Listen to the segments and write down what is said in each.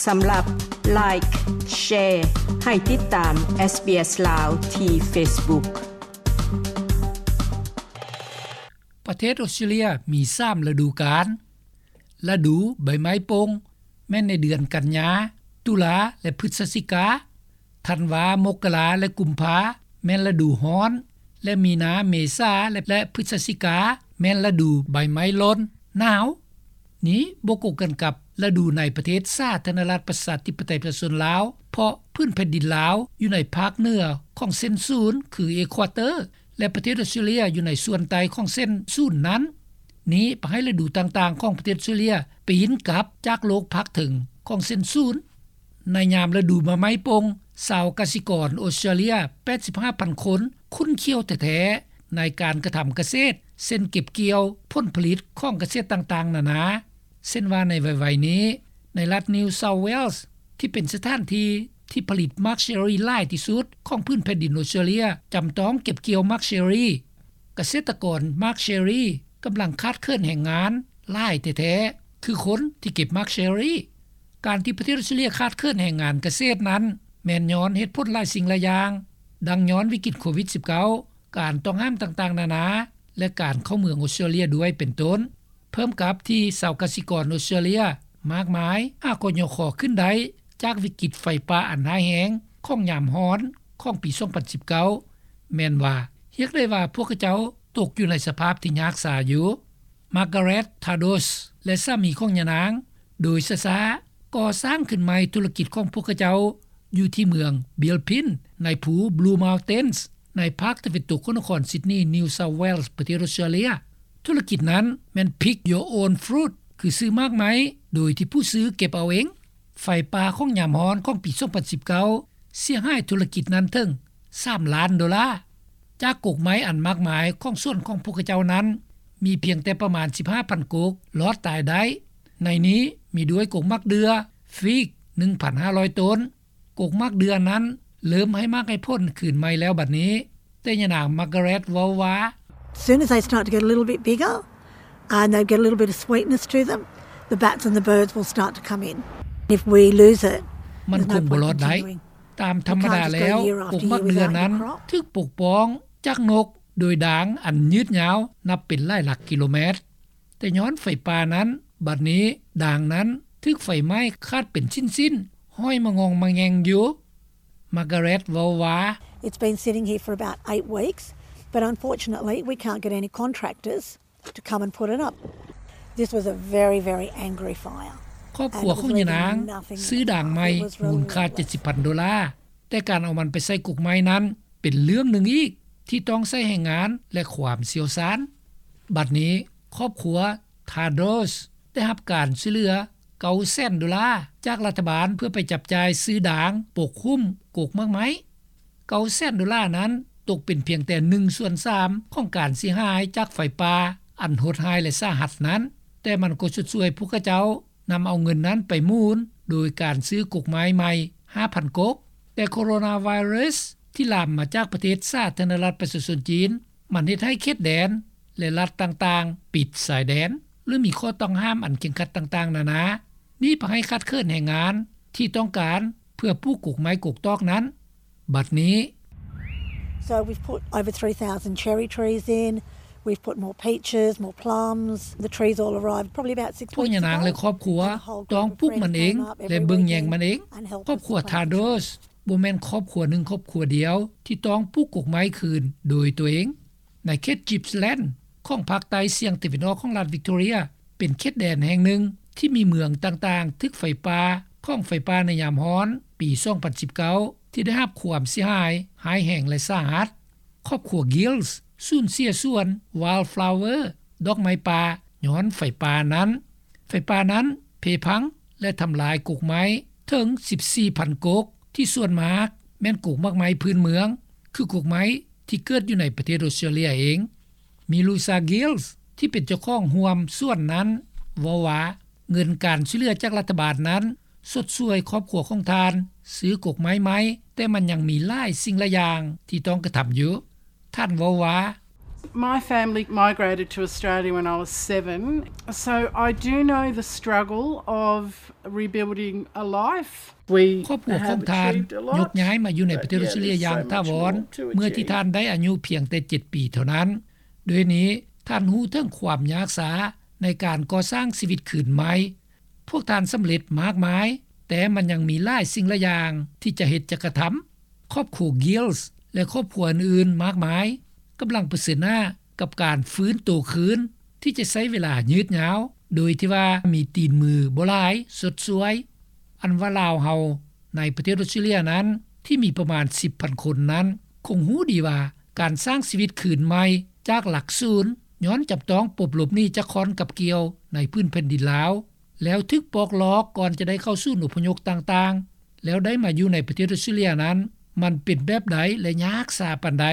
ສຳລັບ Like, Share ໃຫ້ຕິດຕາມ SBS ລາວ ທີ່ Facebook. ປະເທດອົດສະຕຣາເລຍມີສາມລະດູການ. ລະດູໃບໄມ້ປົ່ງແມ່ນໃນເດືອນກັນຍາ, ຕຸລາ ແລະ ພຶສຈິກາ. ທັນວາ, ມົກກະລາ ແລະ ກຸມພາ ແມ່ນລະດູຮ້ອນ ແລະ ມີນາ, ເມສາ ແລະ ແລະ ພຶສຈິກາ ແມ່ນລະດູໃບໄມ້ຫຼົ່ນ, ໜາວ. ນີ້ບໍ່ກົງກັນກັບລະດູໃນປະເທດສາທາລະນະລັດປະຊາທິປະໄຕປະຊາຊົນລາວ, ເພາະພື້ນແຜ່ນດິນລາວຢູ່ໃນພາກເໜືອຂອງເສັ້ນສູນ ຄື Equator ແລະ ປະເທດອົດສະຕຣາເລຍຢູ່ໃນສ່ວນໃຕ້ຂອງເສັ້ນສູນນັ້ນ. ນີ້ພາໃຫ້ລະດູຕ່າງໆຂອງປະເທດອົດສະຕຣາເລຍປີນກັບຈາກໂລກພາກເທິງຂອງເສັ້ນສູນ. ໃນຍາມລະດູໃບໄມ້ປົ່ງ, ຊາວກະສິກອນອົດສະຕຣາເລຍ ແປດສິບຫ້າພັນຄົນ ຂຸ້ນຂ້ຽວແທ້ໆໃນການກະທຳກະເສດ, ເຊັ່ນ ເກັບກ່ຽວຜົນຜະລິດຂອງກະເສດຕ່າງໆນານາ. ເຊັ່ນວ່າໃນໄວໆນີ້, ໃນລັດ New South Wales ທີ່ເປັນສະຖານທີ່ທີ່ຜະລິດໝາກເຊີຣີຫຼາຍທີ່ສຸດຂອງພື້ນແຜ່ນດິນອົດສະຕຣາເລຍ ຈຳຕ້ອງເກັບກ່ຽວໝາກເຊີຣີ. ກະເສດຕະກອນໝາກເຊີຣີກຳລັງຂາດເຂີນແຮງງານຫຼາຍແທ້ໆ ຄືຄົນທີ່ເກັບໝາກເຊີຣີ. ການທີ່ປະເທດອົດສະຕຣາເລຍຂາດເຂີນແຮງງານກະເສດນັ້ນ ແມ່ນຍ້ອນເຫດຜົນຫຼາຍສິ່ງຫຼາຍຢ່າງ, ດັ່ງຍ້ອນວິກິດໂຄວິດສິບເກົ້າ, ການຕ້ອງຫ້າມຕ່າງໆນານາ ແລະ ການເຂົ້າເມືອງອົດສະຕຣາເລຍດ້ວຍເປັນຕົ້ນ. ເພີ່ມກັບທີ່ຊາວກະສິກອນອົດສະຕຣາເລຍມາກມາຍຫາກໍຍໍຄໍຂຶ້ນໄດ້ຈາກວິກິດໄຟປ່າອັນຮ້າຍແຮງຂອງຍາມຮ້ອນຂອງປີສອງພັນສິບເກົ້າ ແມ່ນວ່າຮຽກໄດ້ວ່າພວກເຂົາເຈົ້າຕົກຢູ່ໃນສະພາບທີ່ຍາກຊາຢູ່. Margaret Tadros ແລະ ສາມີຂອງຍານາງ ໂດຍຊ້າໆກໍ່ສ້າງຂຶ້ນໃໝ່ທຸລະກິດຂອງພວກເຂົາເຈົ້າຢູ່ທີ່ເມືອງ Bilpin ໃນພູ Blue Mountains ໃນພາກຕາເວັນຕົກຂອງນະຄອນຊິດນີ New South Wales ປະເທດອົດສະຕຣາເລຍ. ທຸລະກິດນັ້ນແມ່ນ Pick Your Own Fruit ຄືຊື້ໝາກໄມ້ໂດຍທີ່ຜູ້ຊື້ເກັບເອົາເອງ. ໄຟປ່າຂອງຍາມຮ້ອນຂອງປີສອງພັນສິບເກົ້າເສຍຫາຍທຸລະກິດນັ້ນເຖິງສາມລ້ານໂດລາ. ຈາກກົກໄມ້ອັນມາກມາຍຂອງສວນຂອງພວກເຂົາເຈົ້ານັ້ນ ມີພຽງແຕ່ປະມານສິບຫ້າພັນກົກລອດຕາຍໄດ້. ໃນນີ້ມີດ້ວຍກົກໝາກເດື່ອ, ຟີກ ໜຶ່ງພັນຫ້າຮ້ອຍຕົ້ນ. ກົກໝາກເດື່ອນັ້ນເລີ່ມໃຫ້ໝາກໃຫ້ຜົນຄືນໃໝ່ແລ້ວບັດນີ້, ແຕ່ຍານາງ Margaret ເວົ້າວ່າ Soon as they start to get a little bit bigger and they get a little bit of sweetness to them, the bats and the birds will start to come in. If we lose it, ມັນຄົງບໍ່ລອດໄດ້. ຕາມທຳມະດາແລ້ວ, ກົກໝາກເດື່ອນັ້ນຖືກປົກປ້ອງຈາກນົກໂດຍດາງອັນຍືດຍາວນັບເປັນຫຼາຍຫຼັກກິໂລແມັດ. ແຕ່ຍ້ອນໄຟປ່ານັ້ນ, ບັດນີ້ດາງນັ້ນຖືກໄຟໄໝ້ຂາດເປັນຊິ້ນໆ, ຫ້ອຍມະງອງມະແງງຢູ່. Margaret ເວົ້າວ່າ It's been sitting here for about eight weeks, but unfortunately we can't get any contractors to come and put it up. This was a very, very angry fire. ຄອບຄົວຂອງຍານາງຊື້ດາງໃໝ່ມູນຄ່າເຈັດສິບພັນໂດລາ, ແຕ່ການເອົາມັນໄປໃສ່ກົກໄມ້ນັ້ນເປັນເລື່ອງໜຶ່ງອີກທີ່ຕ້ອງໃຊ້ແຮງງານ ແລະ ຄວາມຊ່ຽວຊານ. ບັດນີ້ຄອບຄົວ Tadros ໄດ້ຮັບການຊ່ວຍເຫຼືອເກົ້າແສນໂດລາຈາກລັດຖະບານ ເພື່ອໄປຈັບຈ່າຍຊື້ດາງປົກຫຸ້ມກົກໝາກໄມ້. ເກົ້າແສນໂດລານັ້ນຕົກເປັນພຽງແຕ່ໜຶ່ງສ່ວນສາມຂອງການເສຍຫາຍຈາກໄຟປ່າອັນໂຫດຮ້າຍ ແລະ ສາຫັດນັ້ນ, ແຕ່ມັນກໍຊົດຊ່ວຍພວກເຂົາເຈົ້ານຳເອົາເງິນນັ້ນໄປໝູນໂດຍການຊື້ກົກໄມ້ໃໝ່ຫ້າພັນກົກ. ແຕ່ໂຄໂຣນາໄວຣັສທີ່ລາມມາຈາກປະເທດສາທາລະນະລັດປະຊາຊົນຈີນ ມັນເຮັດໃຫ້ເຂດແດນ ແລະ ລັດຕ່າງໆປິດຊາຍແດນ ຫຼື ມີຂໍ້ຕ້ອງຫ້າມອັນເຄັ່ງຄັດຕ່າງໆນານາ. ນີ້ພາໃຫ້ຂາດເຂີນແຮງງານທີ່ຕ້ອງການເພື່ອປູກກົກໄມ້ກົກຕອກນັ້ນ. ບັດນີ້ So we've put over three thousand cherry trees in, we've put more peaches, more plums. The trees all arrived probably about six weeks ago. ພວກຍານາງ ແລະ ຄອບຄົວຕ້ອງປູກມັນເອງ ແລະ ເບິ່ງແຍງມັນເອງ. ຄອບຄົວ Tadros ບໍ່ແມ່ນຄອບຄົວໜຶ່ງຄອບຄົວດຽວທີ່ຕ້ອງປູກກົກໄມ້ຄືນໂດຍຕົວເອງ. ໃນເຂດ Gippsland ຂອງພາກໃຕ້ສ່ຽງຕາເວັນອອກຂອງລັດ Victoria ເປັນເຂດແດນແຫ່ງໜຶ່ງທີ່ມີເມືອງຕ່າງໆຖືກໄຟປ່າຂອງໄຟປ່າໃນຍາມຮ້ອນປີສອງພັນສິບເກົ້າ ທີ່ໄດ້ຮັບຄວາມເສຍຫາຍຮ້າຍແຮງ ແລະ ສາຫັດ. ຄອບຄົວ Gills ສູນເສຍສວນ Wildflower ດອກໄມ້ປ່າ ຍ້ອນໄຟປ່ານັ້ນ. ໄຟປ່ານັ້ນເພພັງ ແລະ ທຳລາຍກົກໄມ້ເຖິງສິບສີ່ພັນກົກ ທີ່ສ່ວນມາກແມ່ນກົກໝາກໄມ້ພື້ນເມືອງ ຄືກົກໄມ້ທີ່ເກີດຢູ່ໃນປະເທດອົດສະຕຣາເລຍເອງ. Milusa Gills ທີ່ເປັນເຈົ້າຂອງຮ່ວມສວນນັ້ນເວົ້າວ່າ ເງິນການຊ່ວຍເຫຼືອຈາກລັດຖະບານນັ້ນຊົດຊ່ວຍຄອບຄົວຂອງທ່ານຊື້ກົກໄມ້ໃໝ່, ແຕ່ມັນຍັງມີຫຼາຍສິ່ງຫຼາຍຢ່າງທີ່ຕ້ອງກະທຳຢູ່. ທ່ານເວົ້າວ່າ My family migrated to Australia when I was seven, so I do know the struggle of rebuilding a life. We ຄອບຄົວຂອງທ່ານຍົກຍ້າຍມາຢູ່ໃນປະເທດອອສເຕຣເລຍຢ່າງຖາວອນ ເມື່ອທີ່ທ່ານໄດ້ອາຍຸພຽງແຕ່ເຈັດປີເທົ່ານັ້ນ. ໂດຍນີ້ທ່ານຮູ້ເຖິງຄວາມຍາກຊ້າໃນການກໍ່ສ້າງຊີວິດຄືນໃໝ່. ພວກທ່ານສຳເລັດມາກມາຍ, ແຕ່ມັນຍັງມີຫຼາຍສິ່ງຫຼາຍຢ່າງທີ່ຈະເຮັດຈະກະທຳ. ຄອບຄົວ Gill ແລະ ຄອບຄົວອື່ນໆມາກມາຍກຳລັງປະເຊີນໜ້າກັບການຟື້ນໂຕຄືນ ທີ່ຈະໃຊ້ເວລາຍືດຍາວ ໂດຍທີ່ວ່າມີຕີນມືບໍ່ຫຼາຍຊົດຊ່ວຍ. ອັນວ່າລາວເຮົາໃນປະເທດອອສເຕຣເລຍນັ້ນ ທີ່ມີປະມານສິບພັນຄົນນັ້ນ ຄົງຮູ້ດີວ່າການສ້າງຊີວິດຄືນໃໝ່ຈາກຫຼັກສູນ ຍ້ອນຈຳຕ້ອງປົບລົບໜີ້ຈາກຂ້ອນກັບກ່ຽວໃນພື້ນແຜ່ນດິນລາວ ແລ້ວຖືກປອກລອກກ່ອນຈະໄດ້ເຂົ້າສູນອົບພະຍົບຕ່າງໆ ແລ້ວໄດ້ມາຢູ່ໃນປະເທດອອສເຕຣເລຍນັ້ນ ມັນເປັນແບບໃດ ແລະ ຍາກຊ້າປານໃດ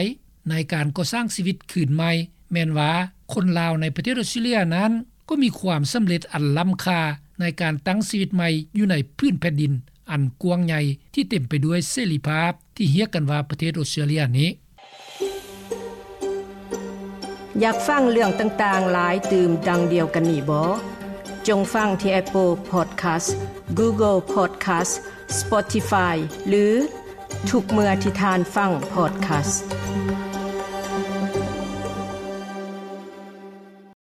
ໃນການກໍ່ສ້າງຊີວິດຄືນໃໝ່. ແມ່ນວ່າຄົນລາວໃນປະເທດອອສເຕຣເລຍນັ້ນ ກໍມີຄວາມສຳເລັດອັນລ້ຳຄ່າໃນການຕັ້ງຊີວິດໃໝ່ຢູ່ໃນພື້ນແຜ່ນດິນອັນກວ້າງໃຫຍ່ທີ່ເຕັມໄປດ້ວຍເສລີພາບທີ່ຮຽກກັນວ່າປະເທດອອສເຕຣເລຍນີ້. ຢາກຟັງເລື່ອງຕ່າງໆຫຼາຍຕື່ມດັ່ງດຽວກັນນີ້ບໍ? ຈົ່ງຟັງທີ່ Apple Podcast, Google Podcast, Spotify ຫຼື ທຸກເມື່ອທີ່ທ່ານຟັງ Podcast.